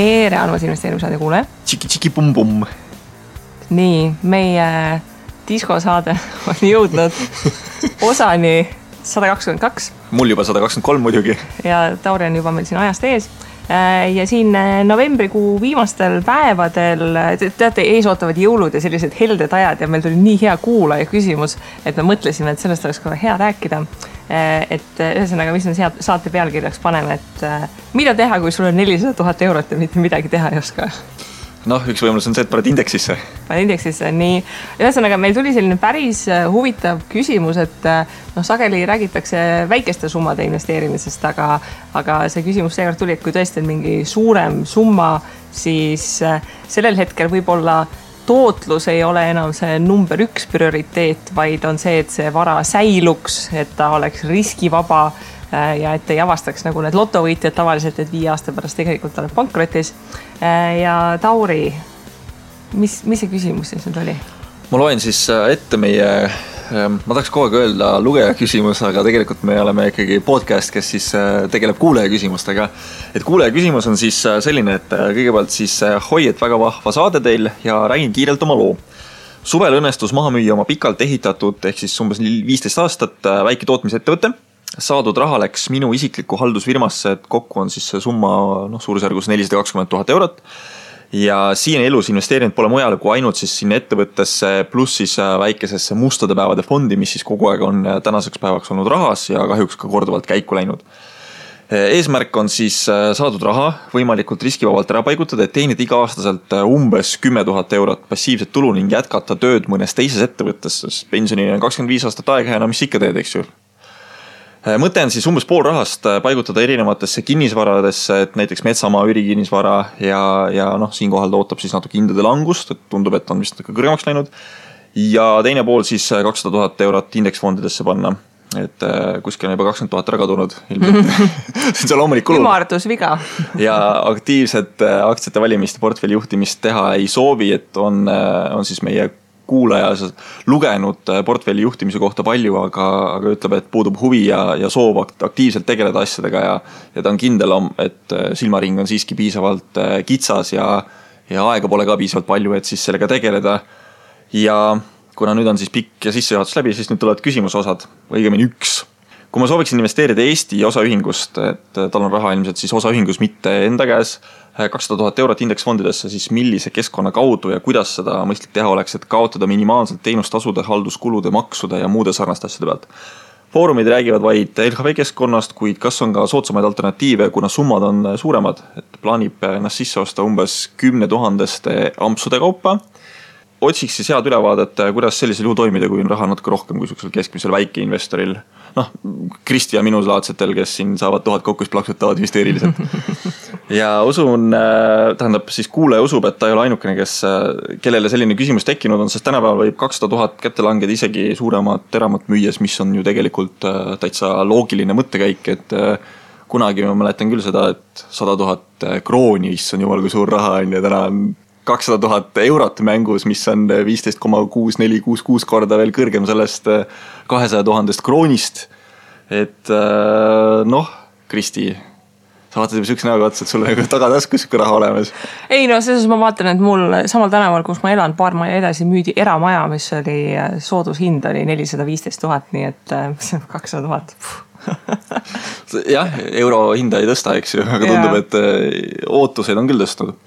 tere, armas investeerimissaade kuule. Tšiki-tšiki-pum-pum. Nii, meie diskosaade on jõudnud osani 122. Mul juba 123 muidugi. Ja Tauri on juba meil siin ajast ees. Ja siin novembrikuu viimastel päevadel, teate, ees ootavad jõulud ja sellised helded ajad ja meil tuli nii hea kuulaja küsimus, et me mõtlesime, et sellest oleks kohe hea rääkida. Et ühesõnaga, mis on saate pealkirjaks paneme, et mida teha, kui sul on 400 000 eurot ja mitte midagi teha ei oska? Noh, üks võimalus on see, et paned indeksisse. Paned indeksisse, nii. Ühesõnaga, meil tuli selline päris huvitav küsimus, et sageli räägitakse väikeste summade investeerimisest, aga see küsimus seekord tuli, et kui tõesti on mingi suurem summa, siis sellel hetkel võib-olla tootlus ei ole enam see number 1 prioriteet, vaid on see, et see vara säiluks, et ta oleks riskivaba ja et ei avastaks nagu need lotovõitjad tavaliselt, et 5 aasta pärast tegelikult oled pankrotis. Ja Tauri, mis see küsimus siis nüüd oli? Ma loen siis ette meie, ma tahaks kogu aeg öelda lugeja küsimus, aga tegelikult me oleme ikkagi podcast, kes siis tegeleb kuulaja küsimustega. Et kuulaja küsimus on siis selline, et kõigepealt siis hoi, et väga vahva saade teil ja räägin kiirelt oma loo. Suvel õnnestus maha müüa oma pikalt ehitatud, ehk siis umbes 15 aastat väike tootmisettevõte. Saadud raha läks minu isikliku haldusfirmasse, et kokku on siis see summa suurusjärgus 420 000 eurot. Ja siin elus investeerinud pole mujale kui ainult siis sinna ettevõttesse pluss siis väikesesse mustade päevade fondi, mis siis kogu aeg on tänaseks päevaks olnud rahas ja kahjuks ka korduvalt käiku läinud. Eesmärk on siis saadud raha võimalikult riskivabalt ära paigutada, et teenida iga aastaselt umbes 10 000 eurot passiivset tulu ning jätkata tööd mõnes teises ettevõttes, sest pensioni on 25 aastat aega ja mis ikka teed, eks ju. Mõte on siis umbes pool rahast paigutada erinevatesse kinnisvaradesse, et näiteks metsamaa ürikinnisvara ja siinkohal ootab siis natuke hindade langust, et tundub, et on vist kõrgemaks läinud. Ja teine pool siis 200 000 eurot indeksfondidesse panna, et kuskil on juba 20 000 ära kadunud. See on loomulik kulu. Ümardus viga. Ja aktiivset aktsiate valimist ja portfelli juhtimist teha ei soovi, et on siis meie kuulaja lugenud portfelli juhtimise kohta palju, aga ütleb, et puudub huvi ja soov aktiivselt tegeleda asjadega ja ta on kindel, et silmaring on siiski piisavalt kitsas ja aega pole ka piisavalt palju, et siis sellega tegeleda. Ja kuna nüüd on siis pikk ja sissejuhatus läbi, siis nüüd tulevad küsimusosad, õigemini üks. Kui ma sooviksin investeerida Eesti osaühingust, et tal on raha ilmselt siis osaühingus mitte enda käes, 200 000 eurot indeksfondidesse, siis millise keskkonna kaudu ja kuidas seda mõistlik teha oleks, et kaotada minimaalselt teenustasude, halduskulude, maksude ja muude sarnaste asjade pealt. Foorumid räägivad vaid LHV keskkonnast, kuid kas on ka soodsamaid alternatiive, kuna summad on suuremad, et plaanib ennast sisse osta umbes 10 000 ampsude kaupa. Otsiks siis head ülevaadet, kuidas sellisel juhul toimida, kui on raha natuke rohkem kui keskmisel väikeinvestoril. Kristi ja minusulaadsetel, kes siin saavad 1000 kokku, plaksutavad hüsteeriliselt. Ja usun, tähendab siis kuulaja usub, et ta ei ole ainukene, kellele selline küsimus tekkinud on, sest tänapäeval võib 200 000 kätte langeda isegi suuremat teramat müües, mis on ju tegelikult täitsa loogiline mõttekäik, et kunagi ma mäletan küll seda, et 100 000 krooni, mis on jumal kui suur raha on ja täna on 200 000 eurot mängus, mis on 15,6466 korda veel kõrgem sellest 200 000 kroonist. Et Kristi, sa vaatad juba sükse näoga otsa, et sul on tagataskus raha olemas. Ei, selles ma vaatan, et mul samal tänaval, kus ma elan, paar maja edasi müüdi eramaja, mis oli soodushind oli 415 000, nii et 200 000. Jah, euro hinda ei tõsta, eks ju, aga tundub, et ootuseid on küll tõstnud.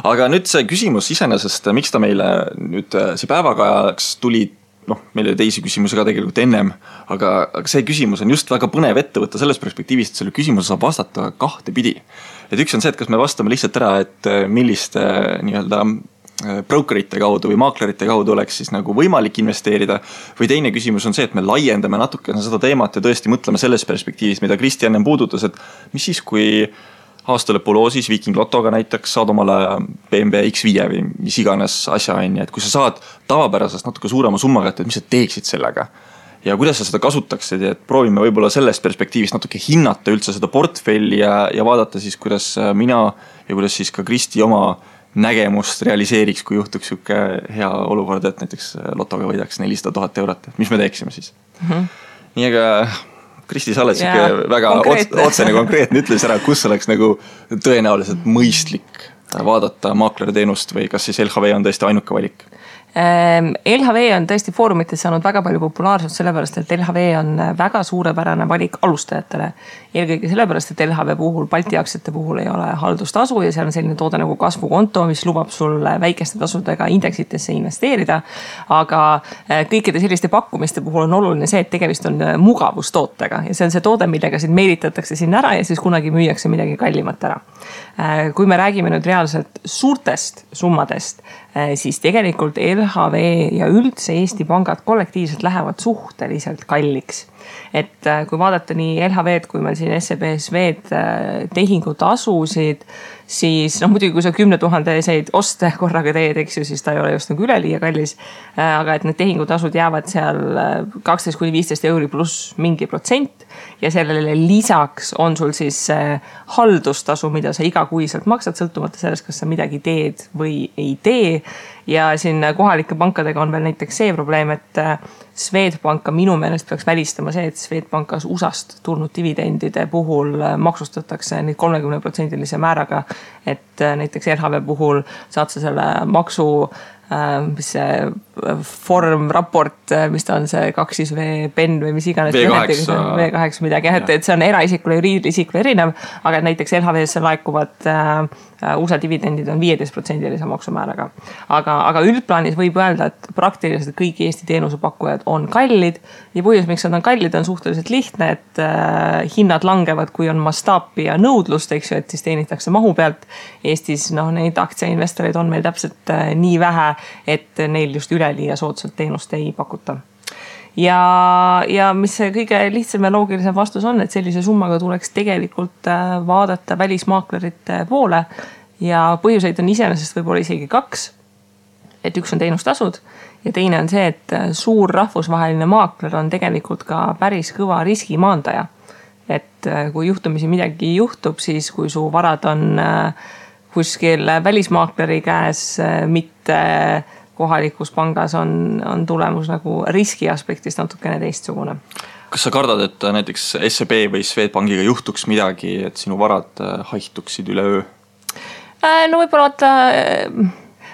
Aga nüüd see küsimus iseenesest, miks ta meile nüüd see päevakajaks tuli, meil oli teisi küsimusi ka tegelikult ennem, aga see küsimus on just väga põnev ette võtta selles perspektiivist, et selle küsimuse saab vastata kahte pidi. Et üks on see, et kas me vastame lihtsalt ära, et milliste nii-öelda brokerite kaudu või maaklerite kaudu oleks siis nagu võimalik investeerida, või teine küsimus on see, et me laiendame natukene seda teemat ja tõesti mõtleme selles perspektiivis, mida Kristi ennem puudutas, et mis siis, kui aastalõpuloosis Viking Lotoga näiteks saad omale BMW X5 või mis iganes asja on, et kui sa saad tavapärasest natuke suurema summaga, et mis sa teeksid sellega ja kuidas sa seda kasutaksid, et proovime võib-olla sellest perspektiivist natuke hinnata üldse seda portfelli ja vaadata siis, kuidas mina ja kuidas siis ka Kristi oma nägemust realiseeriks, kui juhtuks siuke hea olukord, et näiteks Lotoga võidaks 400 000 eurot, et mis me teeksime siis. Nii aga Kristi, sa oled siuke väga otsene konkreetne, ütles ära, kus oleks nagu tõenäoliselt mõistlik vaadata maakleri teenust või kas siis LHV on tõesti ainuke valik? LHV on tõesti foorumites saanud väga palju populaarsust sellepärast, et LHV on väga suurepärane valik alustajatele. Eelkõige sellepärast, et LHV puhul, Balti aktsiate puhul ei ole haldustasu ja seal on selline toode nagu kasvukonto, mis lubab sul väikeste tasudega indeksitesse investeerida. Aga kõikide selliste pakkumiste puhul on oluline see, et tegemist on mugavustootega ja see on see toode, millega sind meelitatakse sinna ära ja siis kunagi müüakse midagi kallimat ära. Kui me räägime nüüd reaalselt suurtest summadest, siis tegelikult LHV ja üldse Eesti pangad kollektiivselt lähevad suhteliselt kalliks. Et kui vaadata nii LHV-d kui meil siin SEB-SV-d tehingutasusid, siis muidugi kui sa 10 000 oste korraga teed, eks ju, siis ta ei ole just nagu üleliia kallis. Aga et need tehingutasud jäävad seal 12–15 euri pluss mingi protsent ja sellele lisaks on sul siis haldustasu, mida sa igakuiselt maksad, sõltumata sellest, kas sa midagi teed või ei tee. Ja siin kohalike pankadega on veel näiteks see probleem, et Swedbanka minu meelest peaks välistama see, et Swedbankas USAst tulnud dividendide puhul maksustatakse neid 30% määraga, et näiteks LHV puhul saad sa selle maksu, mis see formraport, mis ta on see 2V PEN või mis iganes V8 midagi, et see on eraisikule, juriidisikule erinev, aga näiteks LHV-sse laekuvad USA dividendid on 15% maksumääraga. Aga üldplaanis võib öelda, et praktiliselt kõik Eesti teenusepakkujad on kallid ja põhjus, miks nad on kallid, on suhteliselt lihtne, et hinnad langevad, kui on mastaapi ja nõudlust, eks ju, et siis teenitakse mahu pealt. Eestis neid aktsiainvestoreid on meil täpselt nii vähe, et neil just üleliia soodsalt teenust ei pakuta. Ja mis see kõige lihtsam ja loogilisem vastus on, et sellise summaga tuleks tegelikult vaadata välismaaklerite poole ja põhjuseid on iseenesest võib-olla isegi 2. Et üks on teenustasud ja teine on see, et suur rahvusvaheline maakler on tegelikult ka päris kõva riskimaandaja. Et kui juhtumisi midagi juhtub, siis kui su varad on kuskil välismaakleri käes, mitte kohalikus pangas on tulemus nagu riski aspektist natukene teistsugune. Kas sa kardad, et näiteks SEB või Swedbankiga juhtuks midagi, et sinu varad haihtuksid üle öö? No võib-olla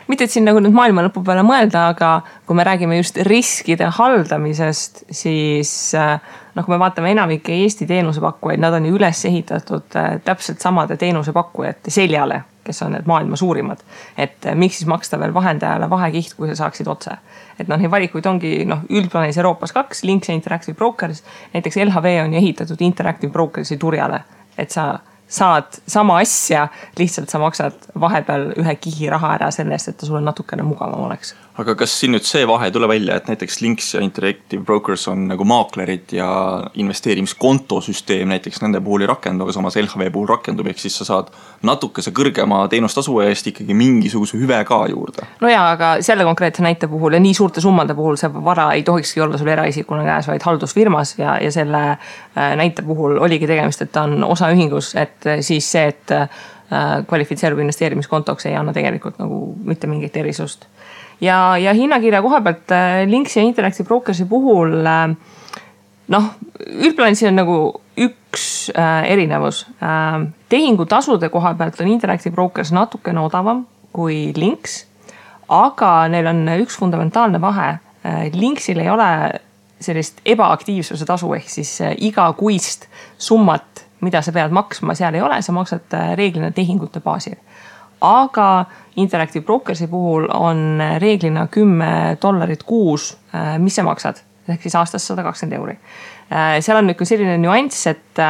mitte et siin nagu nüüd maailma lõpu peale mõelda, aga kui me räägime just riskide haldamisest, siis kui me vaatame enamike Eesti teenusepakkujaid, nad on ju üles ehitatud täpselt samade teenusepakkujate seljale, kes on need maailma suurimad. Et miks siis maksta veel vahendajale vahekiht, kui sa saaksid otse. Et neid valikuid ongi üldplaanis Euroopas 2, Links ja Interactive Brokers. Näiteks LHV on ehitatud Interactive Brokersi turjale, et sa saad sama asja, lihtsalt sa maksad vahepeal ühe kihi raha ära sellest, et ta sulle natukene mugavam oleks. Aga kas siin nüüd see vahe tule välja, et näiteks Links ja Interactive Brokers on nagu maaklerid ja investeerimiskontosüsteem näiteks nende puhul ei rakendu, aga samas LHV puhul rakendub, ehk siis sa saad natukese kõrgema teenustasu eest ikkagi mingisuguse hüve ka juurde? No jaa, aga selle konkreetse näite puhul ja nii suurte summade puhul see vara ei tohikski olla sul eraisikuna käes, vaid haldusfirmas ja selle näite puhul oligi tegemist, et ta on osaühingus, et siis see, et kvalifitseerub investeerimiskontoks ei anna tegelikult nagu mitte mingit erisust. Ja hinnakirja koha pealt Links ja Interactive Brokersi puhul üldplaanis on nagu üks erinevus. Tehingutasude koha pealt on Interactive Brokers natukene odavam kui Links, aga neil on üks fundamentaalne vahe. Linksil ei ole sellist ebaaktiivsuse tasu ehk siis igakuist summat, mida sa pead maksma, seal ei ole, sa maksad reeglina tehingute baasil. Aga Interactive Brokersi puhul on reeglina $10 kuus, mis sa maksad, ehk siis aastas 120 euri. Seal on nüüd selline nüanss, et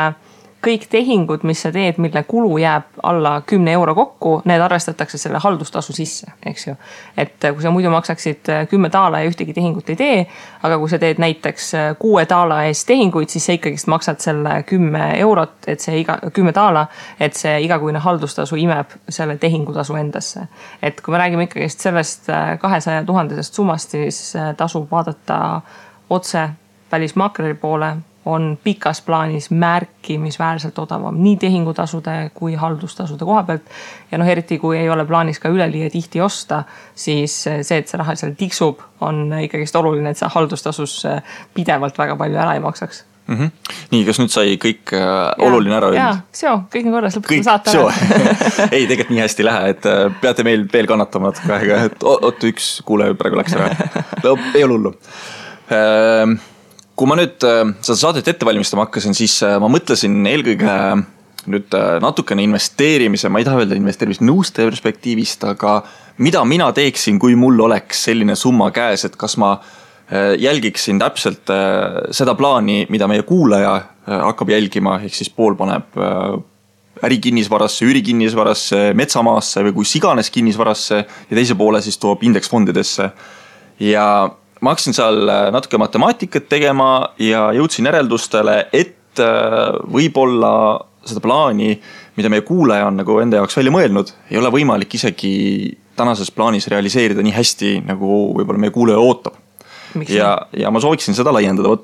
kõik tehingud, mis sa teed, mille kulu jääb alla 10 euro kokku, need arvestatakse selle haldustasu sisse, eks ju. Et kui sa muidu maksaksid $10 ja ühtegi tehingut ei tee, aga kui sa teed näiteks $6 eest tehinguid, siis sa ikkagi maksad selle 10 eurot, et see $10, et see igakuine haldustasu imeb selle tehingutasu endasse. Et kui me räägime ikkagi sellest 200 000 summast, siis tasub vaadata otse välismaakleri poole, on pikas plaanis märkimisväärselt odavam nii tehingutasude kui haldustasude koha pealt. Ja eriti kui ei ole plaanis ka üleliia tihti osta, siis see, et see raha seal tiksub, on ikkagi oluline, et sa haldustasus pidevalt väga palju ära ei maksaks. Nii, kas nüüd sai kõik oluline ära öelnud? Jaa, seo, kõik on korras, lõpetame saate ära. Ei, tegelikult nii hästi ei lähe, et peate meil veel kannatama natuke aega, et oot, üks kuule praegu läks ära. Ei ole hullu. Kui ma nüüd seda saadet ette valmistama hakkasin, siis ma mõtlesin eelkõige nüüd natukene investeerimise, ma ei taha öelda investeerimise nõustaja perspektiivist, aga mida mina teeksin, kui mul oleks selline summa käes, et kas ma jälgiksin täpselt seda plaani, mida meie kuulaja hakkab jälgima, ehk siis pool paneb ärikinnisvarasse, üürikinnisvarasse, metsamaasse või kus iganes kinnisvarasse ja teise poole siis toob indeksfondidesse. Ja ma hakkasin seal natuke matemaatikat tegema ja jõudsin järeldustele, et võib-olla seda plaani, mida meie kuulaja on nagu enda jaoks välja mõelnud, ei ole võimalik isegi tänases plaanis realiseerida nii hästi, nagu võib-olla meie kuulaja ootab. Ja ma sooviksin seda laiendada.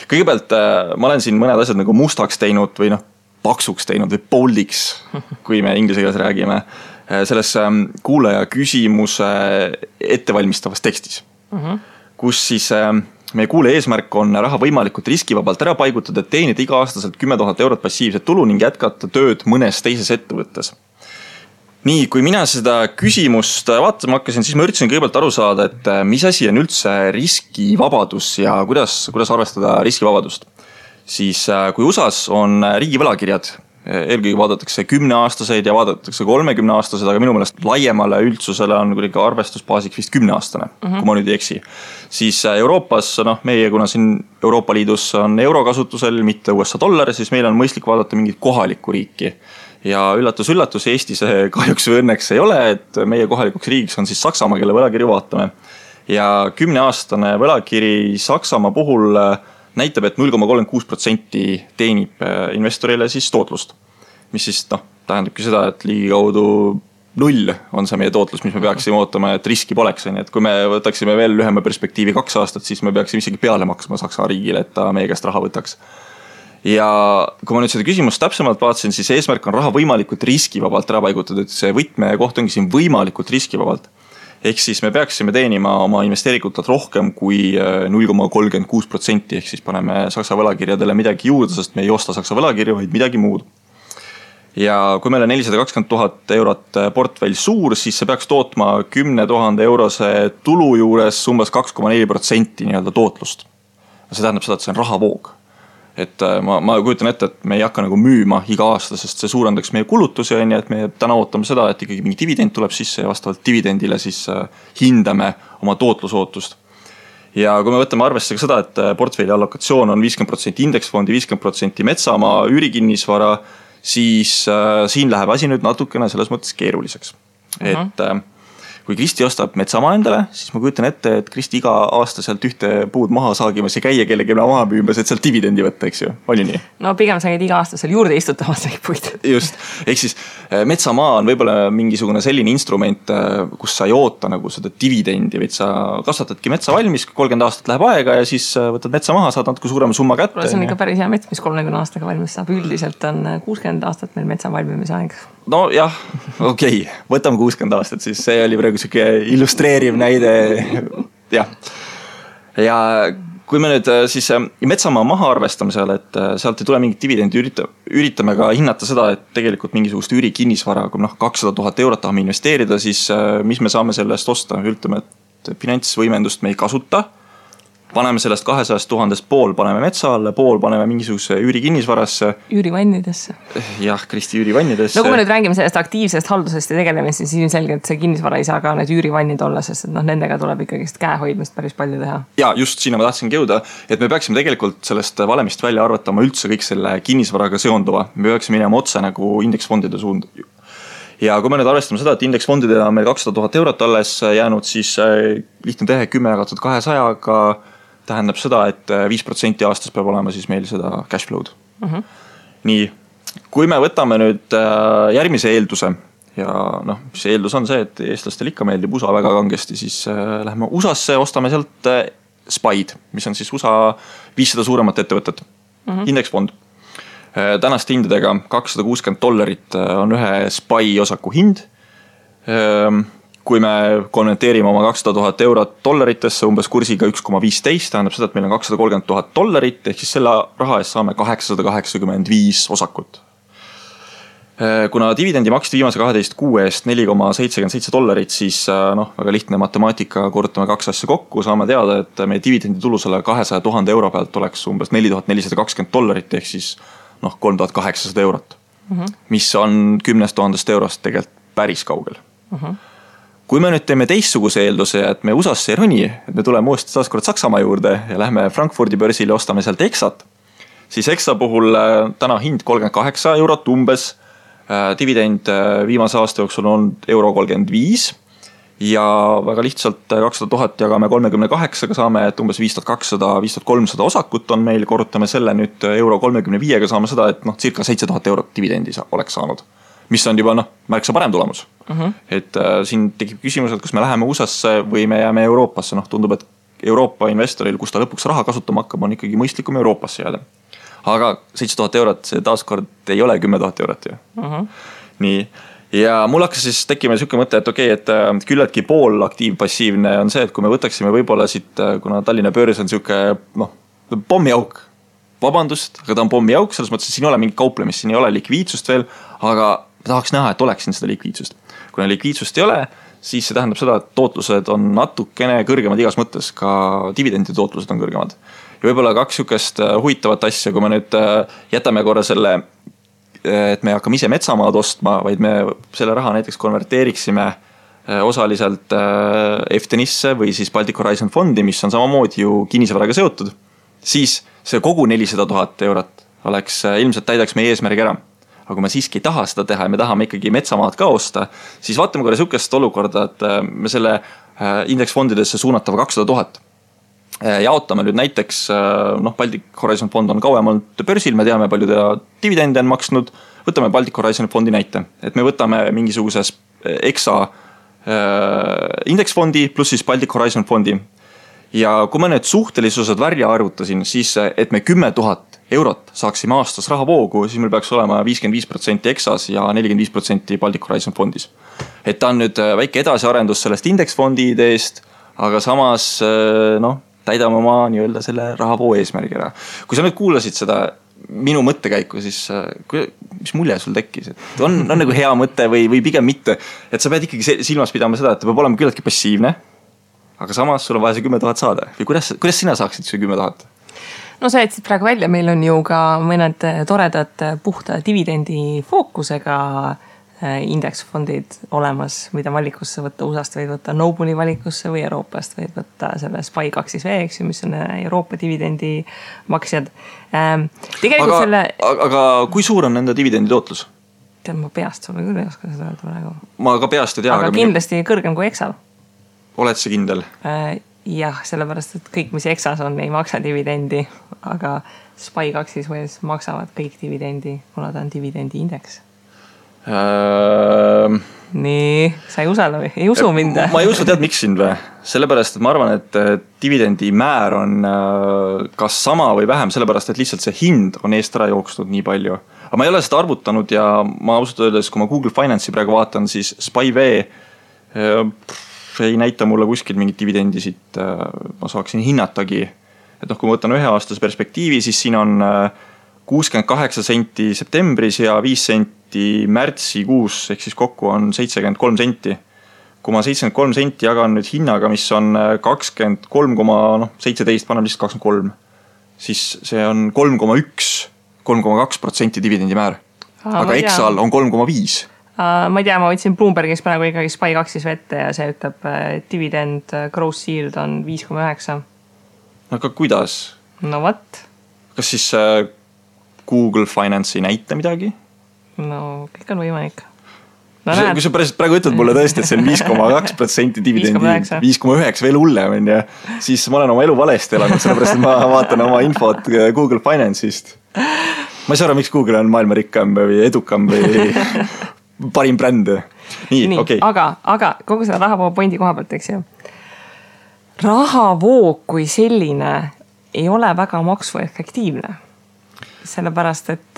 Kõigepealt ma olen siin mõned asjad nagu mustaks teinud või paksuks teinud või boldiks, kui me inglise keeles räägime, selles kuulaja küsimuse ettevalmistavas tekstis, kus siis meie kuulaja eesmärk on raha võimalikult riskivabalt ära paigutada, et teenida iga-aastaselt 10 000 eurot passiivset tulu ning jätkata tööd mõnes teises ettevõttes. Nii, kui mina seda küsimust vaatama hakkasin, siis ma üritasin kõigepealt aru saada, et mis asi on üldse riskivabadus ja kuidas arvestada riskivabadust. Siis kui USAs on riigi võlakirjad, eelkõige vaadatakse 10-aastaseid ja vaadatakse 30-aastased, aga minu meelest laiemale üldsusele on kuidagi arvestusbaasiks vist 10-aastane, kui ma nüüd ei eksi. Siis Euroopas, meie kuna siin Euroopa Liidus on euro kasutusel, mitte USA dollar, siis meil on mõistlik vaadata mingit kohalikku riiki. Ja üllatus, Eestis kahjuks või õnneks ei ole, et meie kohalikuks riigiks on siis Saksamaa, kelle võlakirju vaatame. Ja 10-aastane võlakiri Saksamaa puhul näitab, et 0,36% teenib investorile siis tootlust. Mis siis tähendabki seda, et ligikaudu 0 on see meie tootlus, mis me peaksime ootama, et riski poleks. Et kui me võtaksime veel lühema perspektiivi 2 aastat, siis me peaksime isegi peale maksma Saksa riigile, et ta meie käest raha võtaks. Ja kui ma nüüd seda küsimust täpsemalt vaatasin, siis eesmärk on raha võimalikult riskivabalt ära paigutada, et see võtme koht ongi siin võimalikult riskivabalt. Ehk siis me peaksime teenima oma investeerikutelt rohkem kui 0,36%, ehk siis paneme Saksa võlakirjadele midagi juurde, sest me ei osta Saksa võlakirju, vaid midagi muud. Ja kui meil on 420 000 eurot portfell suur, siis see peaks tootma 10 000 eurose tulu juures umbes 2,4% nii-öelda tootlust. See tähendab seda, et see on rahavoog. Et ma kujutan ette, et me ei hakka nagu müüma iga aasta, sest see suurendaks meie kulutusi, et me täna ootame seda, et ikkagi mingi dividend tuleb sisse ja vastavalt dividendile siis hindame oma tootlusootust. Ja kui me võtame arvesse ka seda, et portfelli allokatsioon on 50% indeksfondi, 50% metsamaa, üürikinnisvara, siis siin läheb asi nüüd natukene selles mõttes keeruliseks. Et kui Kristi ostab metsamaa endale, siis ma kujutan ette, et Kristi iga aasta sealt ühte puud maha saagimas ja käia kellegi maha müümas, et sealt dividendi võtta, eks ju? On ju nii? No pigem sa käid iga aasta seal juurde istutamas neid puid. Just. Ehk siis metsamaa on võib-olla mingisugune selline instrument, kus sa ei oota nagu seda dividendi, vaid sa kasvatadki metsa valmis, 30 aastat läheb aega ja siis võtad metsa maha, saad natuke suurema summa kätte. See on ikka päris hea mets, mis 30 aastaga valmis saab. Üldiselt on 60 aastat meil metsa valmimise aeg. No jah, okei. Võtame 60 aastat, siis see oli praegu siuke illustreeriv näide. Jah. Ja kui me nüüd siis metsamaa maha arvestamisel, et sealt ei tule mingit dividendi, üritame ka hinnata seda, et tegelikult mingisugust üürikinnisvara, kui 200 000 eurot tahame investeerida, siis mis me saame sellest osta? Ütleme, et finantsvõimendust me ei kasuta. Paneme sellest 200 000 pool, paneme metsa alle, pool paneme mingisuguse üürikinnisvarasse. Üürivannidesse. Jah, Kristi üürivannidesse. No kui me nüüd räägime sellest aktiivsest haldusest ja tegelemist, siis ilmselgelt see kinnisvara ei saa ka need üürivannid olla, sest nendega tuleb ikkagi käehoidmist päris palju teha. Ja just sinna ma tahtsingi jõuda, et me peaksime tegelikult sellest valemist välja arvatama üldse kõik selle kinnisvaraga seonduva. Me peaksime minema otse nagu indeksfondide suund. Ja kui me nüüd arvestame seda, et indeksfondidele on meil 200 000 eurot alles jäänud, siis lihtne tehe 10 jagatud 200-ga tähendab seda, et 5% aastas peab olema siis meil seda cash flow'd. Nii, kui me võtame nüüd järgmise eelduse ja see eeldus on see, et eestlastel ikka meeldib USA väga kangesti, siis lähme USA-sse, ostame sealt SPY-d, mis on siis USA 500 suuremat ettevõtet, indeksfond. Tänaste hindadega $260 on ühe SPY osaku hind. kui me konverteerime oma 200 000 eurot dollaritesse umbes kursiga 1,15, tähendab seda, et meil on 230 000 dollarit, ehk siis selle raha eest saame 885 osakut. Kuna dividendi maksti viimase 12 kuu eest $4,77, siis väga lihtne matemaatika, korrutame 2 asja kokku, saame teada, et meie dividendi tulu selle 200 000 euro pealt oleks umbes $4420, ehk siis 3800 eurot, mis on 10 000 eurost tegelikult päris kaugel. Kui me nüüd teeme teistsuguse eelduse, et me USA-sse ei roni, et me tuleme uuesti taaskord Saksamaa juurde ja lähme Frankfurdi börsile, ostame sealt Exat, siis Exa puhul täna hind 38 eurot umbes, dividend viimase aasta jooksul on €35 ja väga lihtsalt 200 000 jagame 38-ga saame, et umbes 5200-5300 osakut on meil, korrutame selle nüüd €35-ga, saame seda, et circa 7000 eurot dividendi oleks saanud, mis on juba märksa parem tulemus. Et siin tekib küsimus, et kas me läheme USA-sse või me jääme Euroopasse, tundub, et Euroopa investoril, kus ta lõpuks raha kasutama hakkab, on ikkagi mõistlikum Euroopasse jääda. Aga 7000 eurot, see taaskord ei ole 10 000 eurot ju. Nii, ja mul hakkas siis tekkima selline mõte, et okei, et küllaltki pool aktiivpassiivne on see, et kui me võtaksime võib-olla siit, kuna Tallinna börs on selline pommiauk, vabandust, aga ta on pommiauk, selles mõttes, et siin ei ole mingi kauplemist, siin ei ole likviidsust veel, aga tahaks näha, et oleks siin seda likviidsust. Kuna likviidsust ei ole, siis see tähendab seda, et tootlused on natukene kõrgemad igas mõttes, ka dividendi tootlused on kõrgemad. Ja võib-olla 2 sükest huvitavat asja, kui me nüüd jätame korra selle, et me hakkame ise metsamaad ostma, vaid me selle raha näiteks konverteeriksime osaliselt FTNisse või siis Baltic Horizon fondi, mis on samamoodi ju kinnisvaraga seotud, siis see kogu 400 000 eurot oleks, ilmselt täidaks meie eesmärgi ära. Aga kui me siiski ei taha seda teha ja me tahame ikkagi metsamaad ka osta, siis vaatame korra sükest olukorda, et me selle indeksfondidesse suunatava 200 000 jaotame nüüd näiteks, Baltic Horizon fond on kauem olnud börsil, me teame, palju ta dividende on maksnud, võtame Baltic Horizon fondi näite, et me võtame mingisuguses Exa indeksfondi pluss siis Baltic Horizon fondi. Ja kui ma nüüd suhtelisused välja arvutasin, siis et me 10 000 eurot saaksime aastas rahavoogu, siis meil peaks olema 55% Exas ja 45% Baltic Horizon fondis. Et ta on nüüd väike edasiarendus sellest indeksfondi ideest, aga samas täidame oma nii-öelda selle rahavoo eesmärgi ära. Kui sa nüüd kuulasid seda minu mõttekäiku, siis mis mulje sul tekkis? Et on nagu hea mõte või pigem mitte? Et sa pead ikkagi silmas pidama seda, et ta peab olema küllaltki passiivne, aga samas sul on vaja see 10 000 saada. Või kuidas sina saaksid see 10 000? No sa jätsid praegu välja, meil on ju ka mõned toredad puhta dividendi fookusega indeksfondid olemas, mida valikusse võtta, USA-st võid võtta Noble'i valikusse või Euroopast võid võtta selle SPY2V, mis on Euroopa dividendi maksjad. Aga kui suur on nende dividendi tootlus? Tead, ma peast sulle küll ei oska seda öelda praegu. Ma ka peast ei tea. Aga kindlasti kõrgem kui Exal. Oled see kindel? Jah, sellepärast, et kõik, mis Exas on, ei maksa dividendi, aga SPY2 maksavad kõik dividendi, kuna ta on dividendi indeks. Nii, sa ei usu mind? Ma ei usu, tead miks sind või? Sellepärast, et ma arvan, et dividendi määr on kas sama või vähem, sellepärast, et lihtsalt see hind on eest ära jooksnud nii palju. Aga ma ei ole seda arvutanud ja ma ausalt öeldes, kui ma Google Finance'i praegu vaatan, siis SPY-V ei näita mulle kuskil mingit dividendisid, ma saaksin hinnatagi. Et kui ma võtan 1 aastase perspektiivi, siis siin on 68 senti septembris ja 5 senti märtsikuus, ehk siis kokku on 73 senti. Kui ma 73 senti jagan nüüd hinnaga, mis on 23,17, panem lihtsalt 23, siis see on 3,2% dividendi määr. Aga Exal on 3,5. Ma ei tea, ma võtsin Bloombergis praegu ikkagi SPY2 vette ja see ütleb, dividend gross yield on 5,9. Aga kuidas? No what? Kas siis Google Finance ei näita midagi? No, kõik on võimalik. No, kui sa praegu ütled mulle tõesti, et see on 5,2% dividendi, 5,9 veel hullem, siis ma olen oma elu valesti elanud, sellepärast, et ma vaatan oma infot Google Finance'ist. Ma ei saa aru, miks Google on maailma rikkam või edukam või parim bränd. Nii, okei. Aga kogu selle rahavoo pointi koha pealt, eks ju. Rahavoo kui selline ei ole väga maksuefektiivne. Sellepärast, et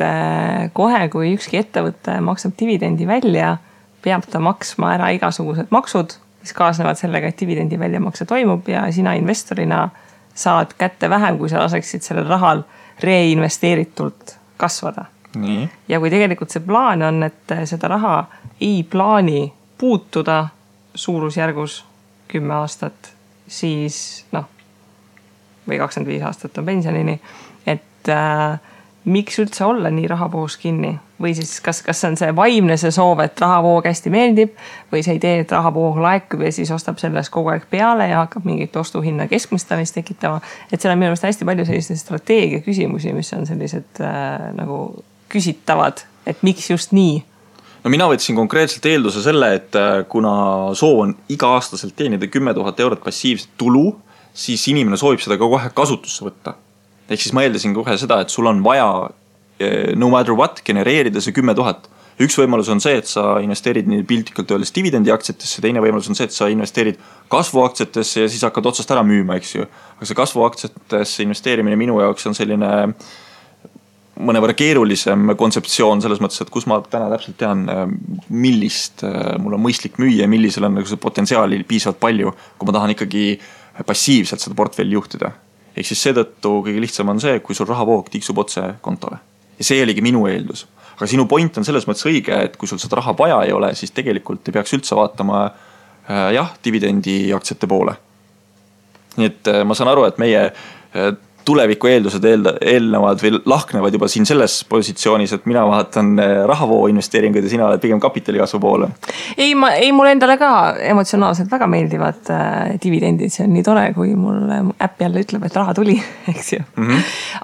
kohe, kui ükski ettevõte maksab dividendi välja, peab ta maksma ära igasugused maksud, mis kaasnevad sellega, et dividendi väljamakse toimub ja sina investorina saad kätte vähem, kui sa laseksid sellel rahal reinvesteeritult kasvada. Nii. Ja kui tegelikult see plaan on, et seda raha ei plaani puutuda suurusjärgus 10 aastat, siis või 25 aastat on pensionini, et miks üldse olla nii rahavoos kinni? Või siis kas on see vaimne see soov, et rahavoog hästi meeldib või see idee, et rahavoog laekub ja siis ostab sellest kogu aeg peale ja hakkab mingit ostuhinna keskmistamist tekitama. Et seal on minu meelest hästi palju selliseid strateegia küsimusi, mis on sellised nagu küsitavad, et miks just nii? No mina võtsin konkreetselt eelduse selle, et kuna soov on iga-aastaselt teenida 10 000 eurot passiivset tulu, siis inimene soovib seda ka kohe kasutusse võtta. Ehk siis ma eeldasin kohe seda, et sul on vaja no matter what genereerida see 10 000. Üks võimalus on see, et sa investeerid nii piltlikult öeldes dividendi aktsiatesse, teine võimalus on see, et sa investeerid kasvuaktsiatesse ja siis hakkad otsast ära müüma, eks ju. Aga see kasvuaktsiatesse investeerimine minu jaoks on selline mõnevõrra keerulisem kontseptsioon selles mõttes, et kus ma täna täpselt tean, millist mul on mõistlik müüa ja millisel on see potentsiaali piisavalt palju, kui ma tahan ikkagi passiivselt seda portfelli juhtida. Ehk siis seetõttu kõige lihtsam on see, kui sul rahavoog tiksub otse kontole. Ja see oligi minu eeldus. Aga sinu point on selles mõttes õige, et kui sul seda raha vaja ei ole, siis tegelikult ei peaks üldse vaatama dividendi aktsiate poole. Nii et ma saan aru, et meie tuleviku eeldused eelnevad või lahknevad juba siin selles positsioonis, et mina vaatan rahavoo investeeringuid ja sina oled pigem kapitalikasvu poole. Ei, mulle endale ka emotsionaalselt väga meeldivad dividendid. See on nii tore, kui mul äpp jälle ütleb, et raha tuli, eks ju.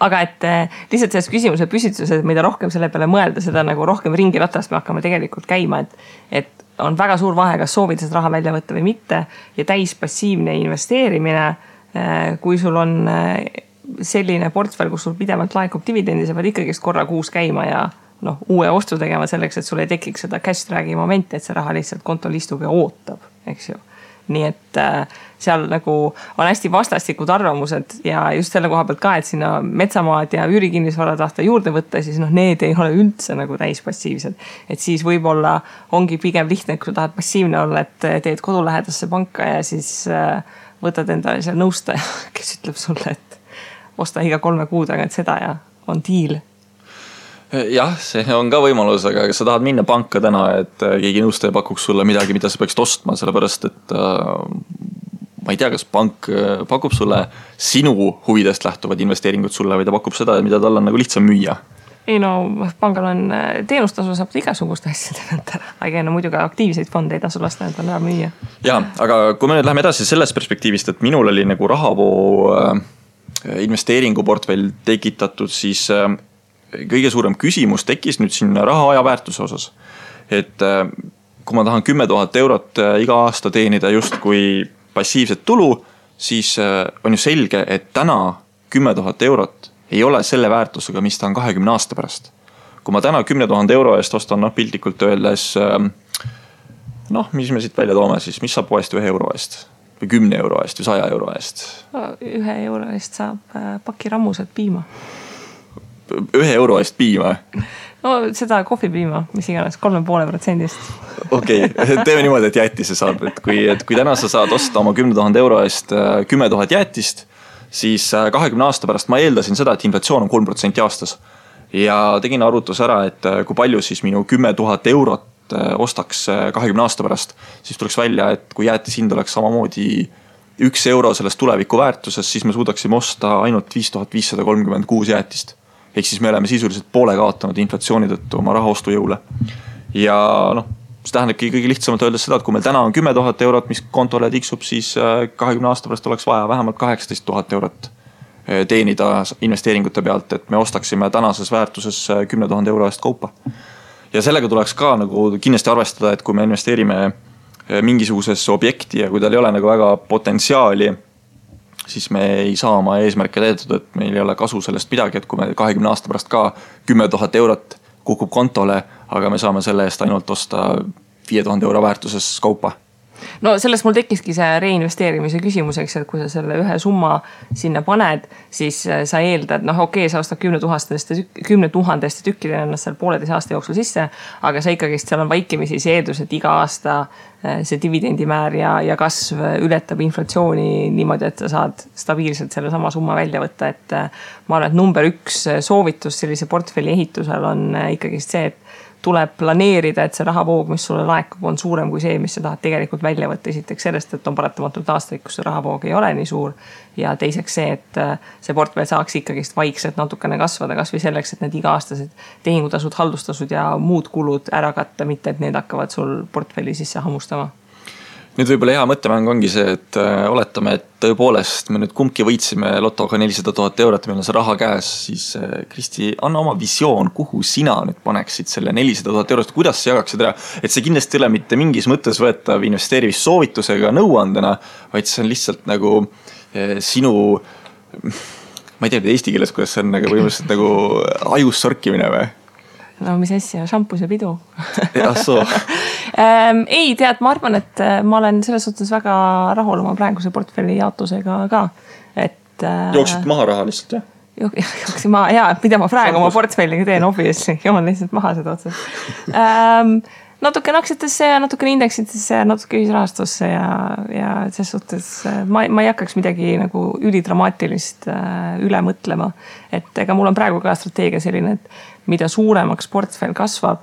Aga et lihtsalt selles küsimuse püstituses, mida rohkem selle peale mõelda, seda nagu rohkem ringi ratast me hakkame tegelikult käima, et on väga suur vahe, kas soovid seda raha välja võtta või mitte ja täis passiivne investeerimine, kui sul on selline portfell, kus sul pidevalt laekub dividendi, sa pead ikkagi korra kuus käima ja uue ostu tegema selleks, et sul ei tekiks seda cash drag'i momenti, et see raha lihtsalt kontol istub ja ootab, eks ju. Nii et seal nagu on hästi vastastikud arvamused ja just selle koha pealt ka, et sinna metsamaad ja üürikinnisvara tahta juurde võtta, siis need ei ole üldse nagu täispassiivsed. Et siis võib-olla ongi pigem lihtne, kui sa tahad passiivne olla, et teed kodulähedasse panka ja siis võtad endale seal nõustaja, kes ütleb sulle, et osta iga 3 kuu tagant seda ja on diil. Jah, see on ka võimalus, aga sa tahad minna panka täna, et keegi nõustaja pakuks sulle midagi, mida sa peaksid ostma, sellepärast et ma ei tea, kas pank pakub sulle sinu huvidest lähtuvad investeeringud sulle või ta pakub seda, mida tal on nagu lihtsam müüa. Ei pangal on teenustasu, saab igasuguste asjade pealt ära. Aga muidugi aktiivseid fonde ei tasu lasta endale ära müüa. Ja, aga kui me nüüd läheme edasi sellest perspektiivist, et minul oli nagu rahavoo investeeringuportfell tekitatud, siis kõige suurem küsimus tekkis nüüd siin raha aja väärtuse osas. Et kui ma tahan 10 000 eurot iga aasta teenida just kui passiivset tulu, siis on ju selge, et täna 10 000 eurot ei ole selle väärtusega, mis ta on 20 aasta pärast. Kui ma täna 10 000 euro eest ostan piltlikult öeldes, mis me siit välja toome siis, mis saab poest 1 euro eest või 10 euro eest või 100 euro eest? 1 euro eest saab paki rammused piima. 1 euro eest piima? Seda kohvipiima, mis iganes, 3,5%. Okei, teeme niimoodi, et jäätise saab. Et kui täna sa saad osta oma 10 000 euro eest 10 000 jäätist, siis 20 aasta pärast ma eeldasin seda, et inflatsioon on 3% aastas. Ja tegin arvutus ära, et kui palju siis minu 10 000 eurot ostaks 20 aasta pärast, siis tuleks välja, et kui jäätis hind oleks samamoodi 1 euro sellest tuleviku väärtuses, siis me suudaksime osta ainult 5536 jäätist. Ehk siis me oleme sisuliselt poole kaotanud inflatsiooni tõttu oma rahaostu jõule. Ja see tähendabki kõige lihtsamalt öeldes seda, et kui meil täna on 10 000 eurot, mis kontole tiksub, siis 20 aasta pärast oleks vaja vähemalt 18 000 eurot teenida investeeringute pealt, et me ostaksime tänases väärtuses 10 000 euro eest kaupa. Ja sellega tuleks ka nagu kindlasti arvestada, et kui me investeerime mingisugusesse objekti ja kui tal ei ole nagu väga potentsiaali, siis me ei saa oma eesmärke täidetud, et meil ei ole kasu sellest midagi, et kui me 20 aasta pärast ka 10 000 eurot kukub kontole, aga me saame selle eest ainult osta 5000 euro väärtuses kaupa. No sellest mul tekkiski see reinvesteerimise küsimuseks, et kui sa selle ühe summa sinna paned, siis sa eeldad, sa ostad 10 000 tükkidena ennast seal 1,5 aasta jooksul sisse, aga sa ikkagi seal on vaikimisi see eeldus, et iga aasta see dividendimäär ja kasv ületab inflatsiooni niimoodi, et sa saad stabiilselt selle sama summa välja võtta, et ma arvan, et number 1 soovitus sellise portfelli ehitusel on ikkagi see, et tuleb planeerida, et see rahavoog, mis sulle laekub, on suurem kui see, mis sa tahad tegelikult välja võtta. Esiteks sellest, et on paratamatult aastaid, kus see rahavoog ei ole nii suur. Ja teiseks see, et see portfell saaks ikkagist vaikselt natukene kasvada, kas või selleks, et need iga-aastased tehingutasud, haldustasud ja muud kulud ära katta, mitte et need hakkavad sul portfelli sisse hammustama. Nüüd võib-olla hea mõttemäng ongi see, et oletame, et tõepoolest me nüüd kumbki võitsime lotoga 400 000 eurot, meil on see raha käes, siis Kristi, anna oma visioon, kuhu sina nüüd paneksid selle 400 000 eurost, kuidas sa jagaksid ära, et see kindlasti ei ole mitte mingis mõttes võetav investeerimissoovitusega nõuandena, vaid see on lihtsalt nagu sinu, ma ei tea eesti keeles, kuidas see on nagu võimaliselt nagu ajus sorkimine või? No mis asja, šampus ja pidu. Ei, tead, ma arvan, et ma olen selles suhtes väga rahul oma praeguse portfelli jaotusega ka. Jooksid maha raha lihtsalt, jah? Jooksin maha, jaa, mida ma praegu oma portfelliga teen, obviously, joon lihtsalt maha seda otsast. Natukene aktsiatesse ja natukene indeksitesse ja natuke ühisrahastusse ja selles suhtes ma ei hakkaks midagi nagu ülidramaatilist üle mõtlema. Et ega mul on praegu ka strateegia selline, et mida suuremaks portfell kasvab,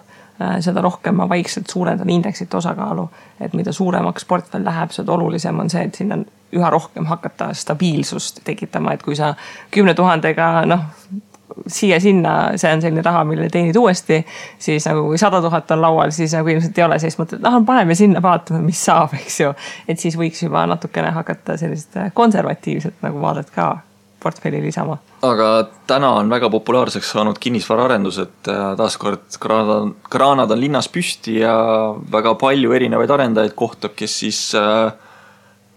seda rohkem ma vaikselt suurendan indeksite osakaalu. Et mida suuremaks portfell läheb, seda olulisem on see, et sinna üha rohkem hakata stabiilsust tekitama. Et kui sa 10 000-ga, siia-sinna, see on selline raha, mille teenid uuesti, siis nagu kui 100 000 on laual, siis nagu ilmselt ei ole, siis mõtled, paneme sinna, vaatame, mis saab, eks ju. Et siis võiks juba natukene hakata sellist konservatiivset nagu vaadet ka portfelli lisama. Aga täna on väga populaarseks saanud kinnisvaraarendus, et taaskord kraanad on linnas püsti ja väga palju erinevaid arendajaid kohtab, kes siis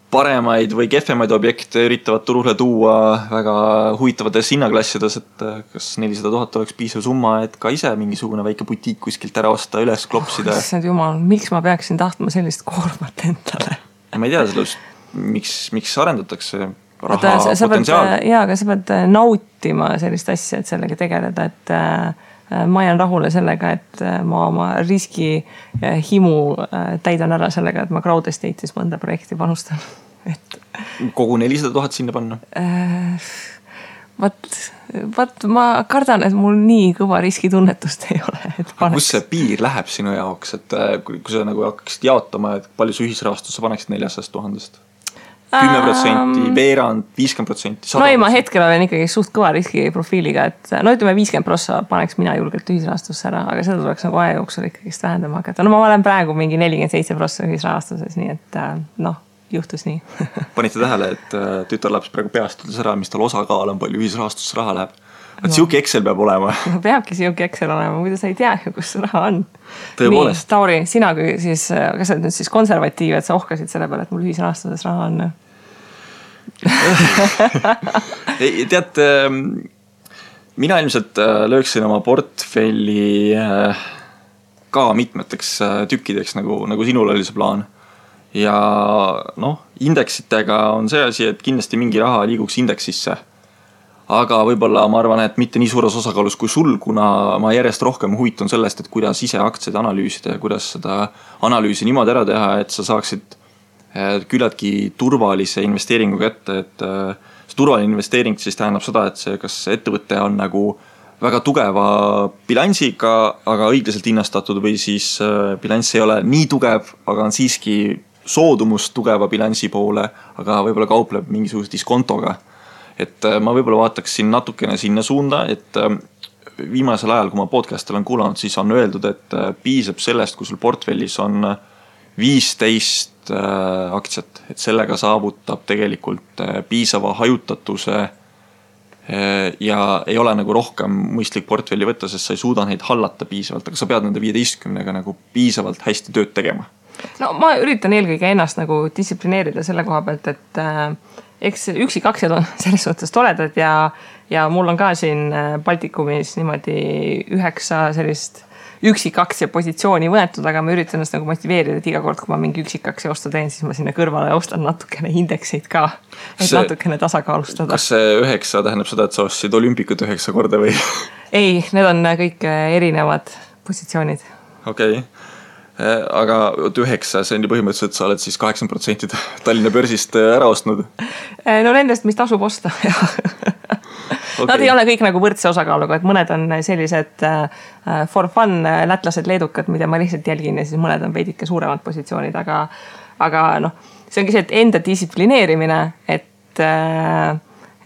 paremaid või kehvemaid objekte üritavad turule tuua väga huvitavates hinnaklassides, et kas 400 000 oleks piisav summa, et ka ise mingisugune väike butiik kuskilt ära osta, üles klopsida. Jumal, miks ma peaksin tahtma sellist koormat endale? Ma ei tea sellest, miks arendatakse raha potentsiaal. Jaa, aga sa pead nautima sellist asja, et sellega tegeleda, et ma jään rahule sellega, et ma oma riski himu täidan ära sellega, et ma crowd estate'is mõnda projekti panustan. Kogu 400 000 sinna panna? Vaat ma kardan, et mul nii kõva riskitunnetust ei ole. Kus see piir läheb sinu jaoks, et kui sa nagu hakkaksid jaotama, et palju see ühisrahastus sa paneksid 400 000-st? 10%, veerand, 50%, 100%. No ei, ma hetkel olen ikkagi suht kõva riskiprofiiliga, et ütleme 50% paneks mina julgelt ühisrahastusse ära, aga seda tuleks nagu aja jooksul ikkagist vähendama hakata. No ma olen praegu mingi 47% ühisrahastuses, nii et juhtus nii. Panite tähele, et tütarlaps praegu peast ütles ära, mis tal osakaal on, palju ühisrahastusse raha läheb. Et siuke Excel peab olema. Peabki siuke Excel olema, muidu sa ei tea, kus see raha on. Tõepoolest. Nii, Tauri, sina kui siis, kas sa nüüd siis konservatiiv, et sa ohkasid selle peale, et mul ühisrahastuses raha on? Tead, mina ilmselt lööksin oma portfelli ka mitmeteks tükkideks, nagu sinul oli see plaan. Ja indeksitega on see asi, et kindlasti mingi raha liiguks indeksisse. Aga võib-olla ma arvan, et mitte nii suures osakaalus kui sul, kuna ma järjest rohkem huvitun sellest, et kuidas ise aktsiaid analüüsida ja kuidas seda analüüsi niimoodi ära teha, et sa saaksid küllaltki turvalise investeeringu kätte, et see turvaline investeering siis tähendab seda, et see kas ettevõte on nagu väga tugeva bilansiga, aga õiglaselt hinnastatud või siis bilanss ei ole nii tugev, aga on siiski soodumust tugeva bilansi poole, aga võib-olla kaupleb mingisuguse diskontoga. Et ma võib-olla vaataks natukene sinna suunda, et viimasel ajal, kui ma podcast olen kuulanud, siis on öeldud, et piisab sellest, kui sul portfellis on 15 aktsiat, et sellega saavutab tegelikult piisava hajutatuse ja ei ole nagu rohkem mõistlik portfelli võtta, sest sa ei suuda neid hallata piisavalt, aga sa pead nende 15-ga nagu piisavalt hästi tööd tegema. No ma üritan eelkõige ennast nagu distsiplineerida selle koha pealt, et eks üksik aktsiad on selles suhtes toredad ja mul on ka siin Baltikumis niimoodi 9 sellist üksikaktsia positsiooni võetud, aga ma üritan ennast nagu motiveerida, et iga kord, kui ma mingi üksikaktsia ostu teen, siis ma sinna kõrvale ostan natukene indekseid ka, et natukene tasakaalustada. Kas see 9 tähendab seda, et sa ostsid olümpikut 9 korda või? Ei, need on kõik erinevad positsioonid. Okei. Aga 9, see on ju põhimõtteliselt, sa oled siis 80% Tallinna börsist ära ostnud. No nendest, mis tasub osta, jah. Okay. Nad ei ole kõik nagu võrdse osakaaluga, et mõned on sellised for fun lätlased, leedukad, mida ma lihtsalt jälgin ja siis mõned on veidike suuremad positsioonid, aga noh, see ongi see, et enda distsiplineerimine, et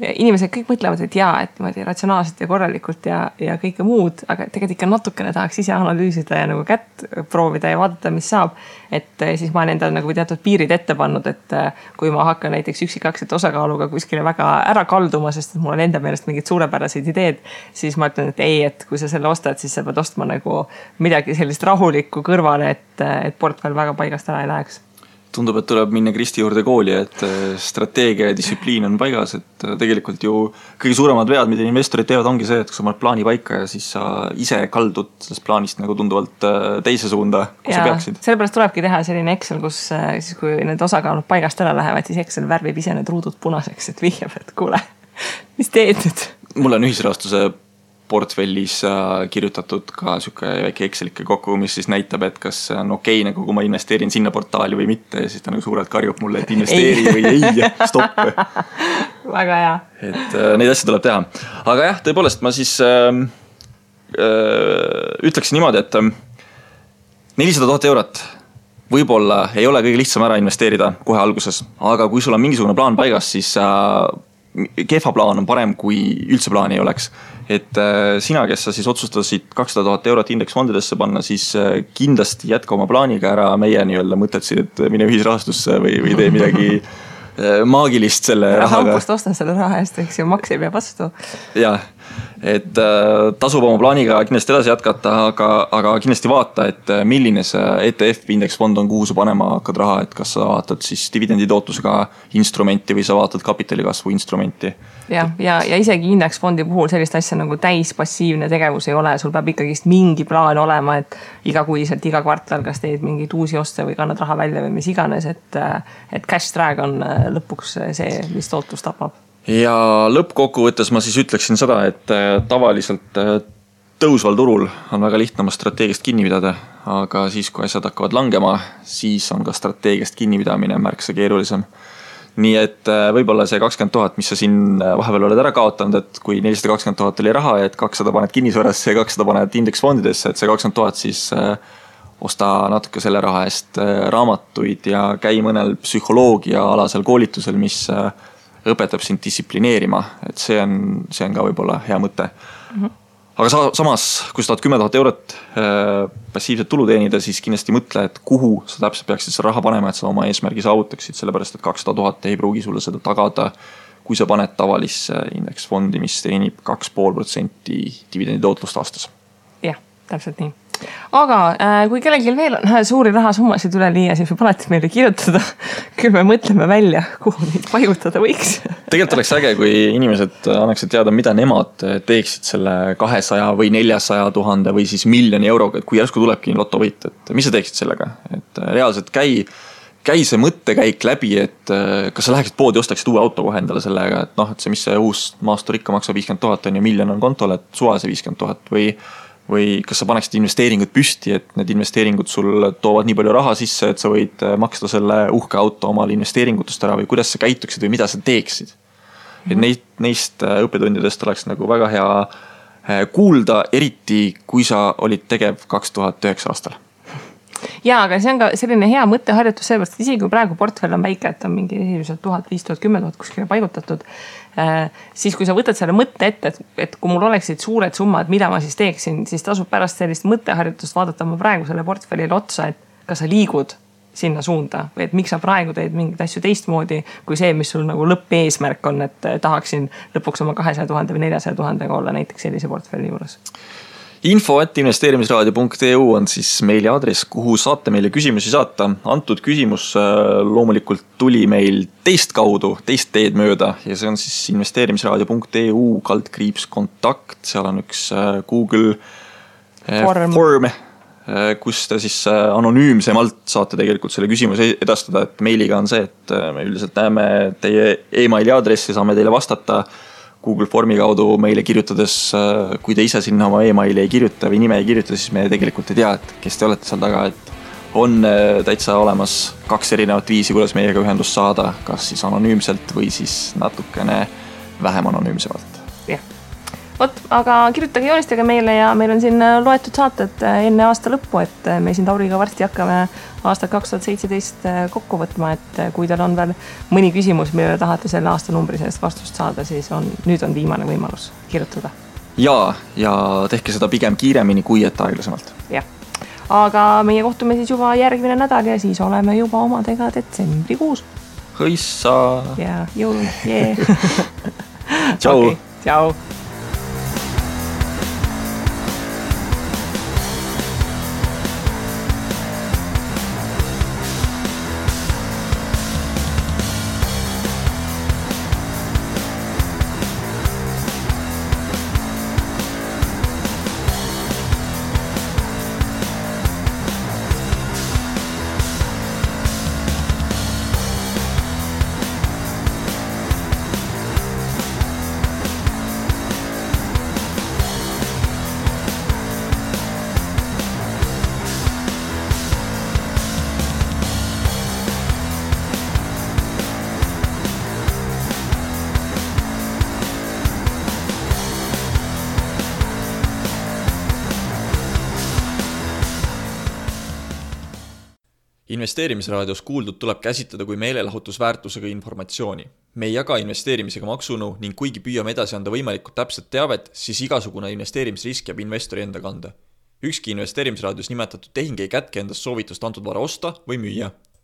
inimesed kõik mõtlevad, et jaa, et niimoodi ratsionaalselt ja korralikult ja kõike muud, aga tegelikult ikka natukene tahaks ise analüüsida ja nagu kätt proovida ja vaadata, mis saab. Et siis ma olen endale nagu teatud piirid ette pannud, et kui ma hakkan näiteks üksikaktsiate osakaaluga kuskile väga ära kalduma, sest mul on enda meelest mingid suurepäraseid ideed, siis ma ütlen, et ei, et kui sa selle ostad, siis sa pead ostma nagu midagi sellist rahulikku kõrvale, et portfell väga paigast ära ei läheks. Tundub, et tuleb minna Kristi juurde kooli, et strateegia ja distsipliin on paigas, et tegelikult ju kõige suuremad vead, mida investorid teevad, ongi see, et kui sa paned plaani paika ja siis sa ise kaldud sellest plaanist nagu tunduvalt teise suunda, kui sa peaksid. Sellepärast tulebki teha selline Excel, kus siis kui need osakaalud paigast ära lähevad, siis Excel värvib ise need ruudud punaseks, et vihjab, et kuule, mis teed nüüd? Mul on ühisrahastuse portfellis kirjutatud ka süke väike Excelike kokku, mis siis näitab, et kas on okei, nagu kui ma investeerin sinna portaali või mitte, ja siis ta nagu suurelt karjub mulle, et investeeri või ei, stopp. Väga hea. Et neid asju tuleb teha. Aga jah, tõepoolest ma siis ütleksin niimoodi, et 400 000 eurot võib-olla ei ole kõige lihtsam ära investeerida kohe alguses, aga kui sul on mingisugune plaan paigas, siis kehva plaan on parem, kui üldse plaani ei oleks. Et sina, kes sa siis otsustasid 200 000 eurot indeksfondidesse panna, siis kindlasti jätka oma plaaniga ära meie nii-öelda mõtletsid, et mine ühisrahastusse või tee midagi maagilist selle rahaga. Haukust ostan selle raha eest, eks ju maks ei pea vastu. Jah, et tasub oma plaaniga kindlasti edasi jätkata, aga kindlasti vaata, et milline see ETF indeksfond on, kuhu sa panema hakkad raha, et kas sa vaatad siis dividenditootlusega instrumenti või sa vaatad kapitalikasvu instrumenti. Ja isegi indeksfondi puhul sellist asja nagu täispassiivne tegevus ei ole, sul peab ikkagist mingi plaan olema, et igakuiselt, iga kvartal kas teed mingeid uusi oste või kannad raha välja või mis iganes, et cash drag on lõpuks see, mis tootlus tapab. Ja lõppkokkuvõttes ma siis ütleksin seda, et tavaliselt tõusval turul on väga lihtne oma strateegiast kinni pidada, aga siis, kui asjad hakkavad langema, siis on ka strateegiast kinnipidamine märksa keerulisem. Nii et võib-olla see 20 000, mis sa siin vahepeal oled ära kaotanud, et kui 420 000 oli raha, et 200 paned kinnisvarasse ja 200 paned indeksfondidesse, et see 20 000 siis osta natuke selle raha eest raamatuid ja käi mõnel psühholoogia alasel koolitusel, mis õpetab sind distsiplineerima, et see on ka võib-olla hea mõte. Aga samas, kui sa tahad 10 000 eurot passiivset tulu teenida, siis kindlasti mõtle, et kuhu sa täpselt peaksid seda raha panema, et sa oma eesmärgi saavutaksid, sellepärast et 200 000 ei pruugi sulle seda tagada, kui sa paned tavalisse indeksfondi, mis teenib 2,5% dividenditootlust aastas. Jah, täpselt nii. Aga kui kellelgi veel on suuri rahasummasid üle liia, siis võib alati meile kirjutada. Küll me mõtleme välja, kuhu neid paigutada võiks. Tegelikult oleks äge, kui inimesed annaksid teada, mida nemad teeksid selle 200 või 400 000 või siis 1 000 000 euroga, et kui järsku tulebki lotovõit, et mis sa teeksid sellega? Et reaalselt käi see mõttekäik läbi, et kas sa läheksid poodi, ostaksid uue auto kohe endale sellega, et noh, et see, mis see uus maastur ikka maksab 50 000 on ja 1 000 000 on kontol, et suva see 50 000 või kas sa paneksid investeeringud püsti, et need investeeringud sul toovad nii palju raha sisse, et sa võid maksta selle uhke auto omale investeeringutest ära või kuidas sa käituksid või mida sa teeksid. Et neist õppetundidest oleks nagu väga hea kuulda, eriti kui sa olid tegev 2009 aastal. Jaa, aga see on ka selline hea mõtteharjutus sellepärast, et isegi kui praegu portfell on väike, et on mingi 1000, 5000, 10 000 kuskile paigutatud, siis kui sa võtad selle mõtte ette, et kui mul oleksid suured summad, mida ma siis teeksin, siis tasub pärast sellist mõtteharjutust vaadata ma praegu selle portfellile otsa, et kas sa liigud sinna suunda või et miks sa praegu teed mingeid asju teistmoodi kui see, mis sul nagu lõppeesmärk on, et tahaksin lõpuks oma 200 000 või 400 000 olla näiteks sellise portfelli juures. info@investeerimisraadio.eu on siis meili aadress, kuhu saate meile küsimusi saata. Antud küsimus loomulikult tuli meil teist kaudu, teist teed mööda ja see on siis investeerimisraadio.eu /kontakt. Seal on üks Google Form, kus te siis anonüümsemalt saate tegelikult selle küsimuse edastada, et meiliga on see, et me üldiselt näeme teie emaili aadressi, saame teile vastata Google Formi kaudu meile kirjutades, kui te ise sinna oma emaili ei kirjuta või nime ei kirjuta, siis me tegelikult ei tea, et kes te olete seal taga, et on täitsa olemas 2 erinevat viisi, kuidas meiega ühendust saada, kas siis anonüümselt või siis natukene vähem anonüümsemalt. Jah. Vot, aga kirjutage, joonistage meile ja meil on siin loetud saated enne aasta lõppu, et me siin Tauriga varsti hakkame aastat 2017 kokku võtma, et kui teil on veel mõni küsimus, mille tahate selle aastanumbri sellest vastust saada, siis nüüd on viimane võimalus kirjutada. Ja tehke seda pigem kiiremini kui et aeglasemalt. Jah, aga meie kohtume siis juba järgmine nädal ja siis oleme juba omadega detsembrikuus. Hõissa! Ja jõul, jee! Tšau! Okay, tšau! Investeerimisraadios kuuldud tuleb käsitleda kui meelelahutusväärtusega informatsiooni. Me ei jaga investeerimisega maksunõu ning kuigi püüame edasi anda võimalikult täpset teavet, siis igasugune investeerimisrisk jääb investori enda kanda. Ükski investeerimisraadios nimetatud tehing ei kätke endast soovitust antud vara osta või müüa.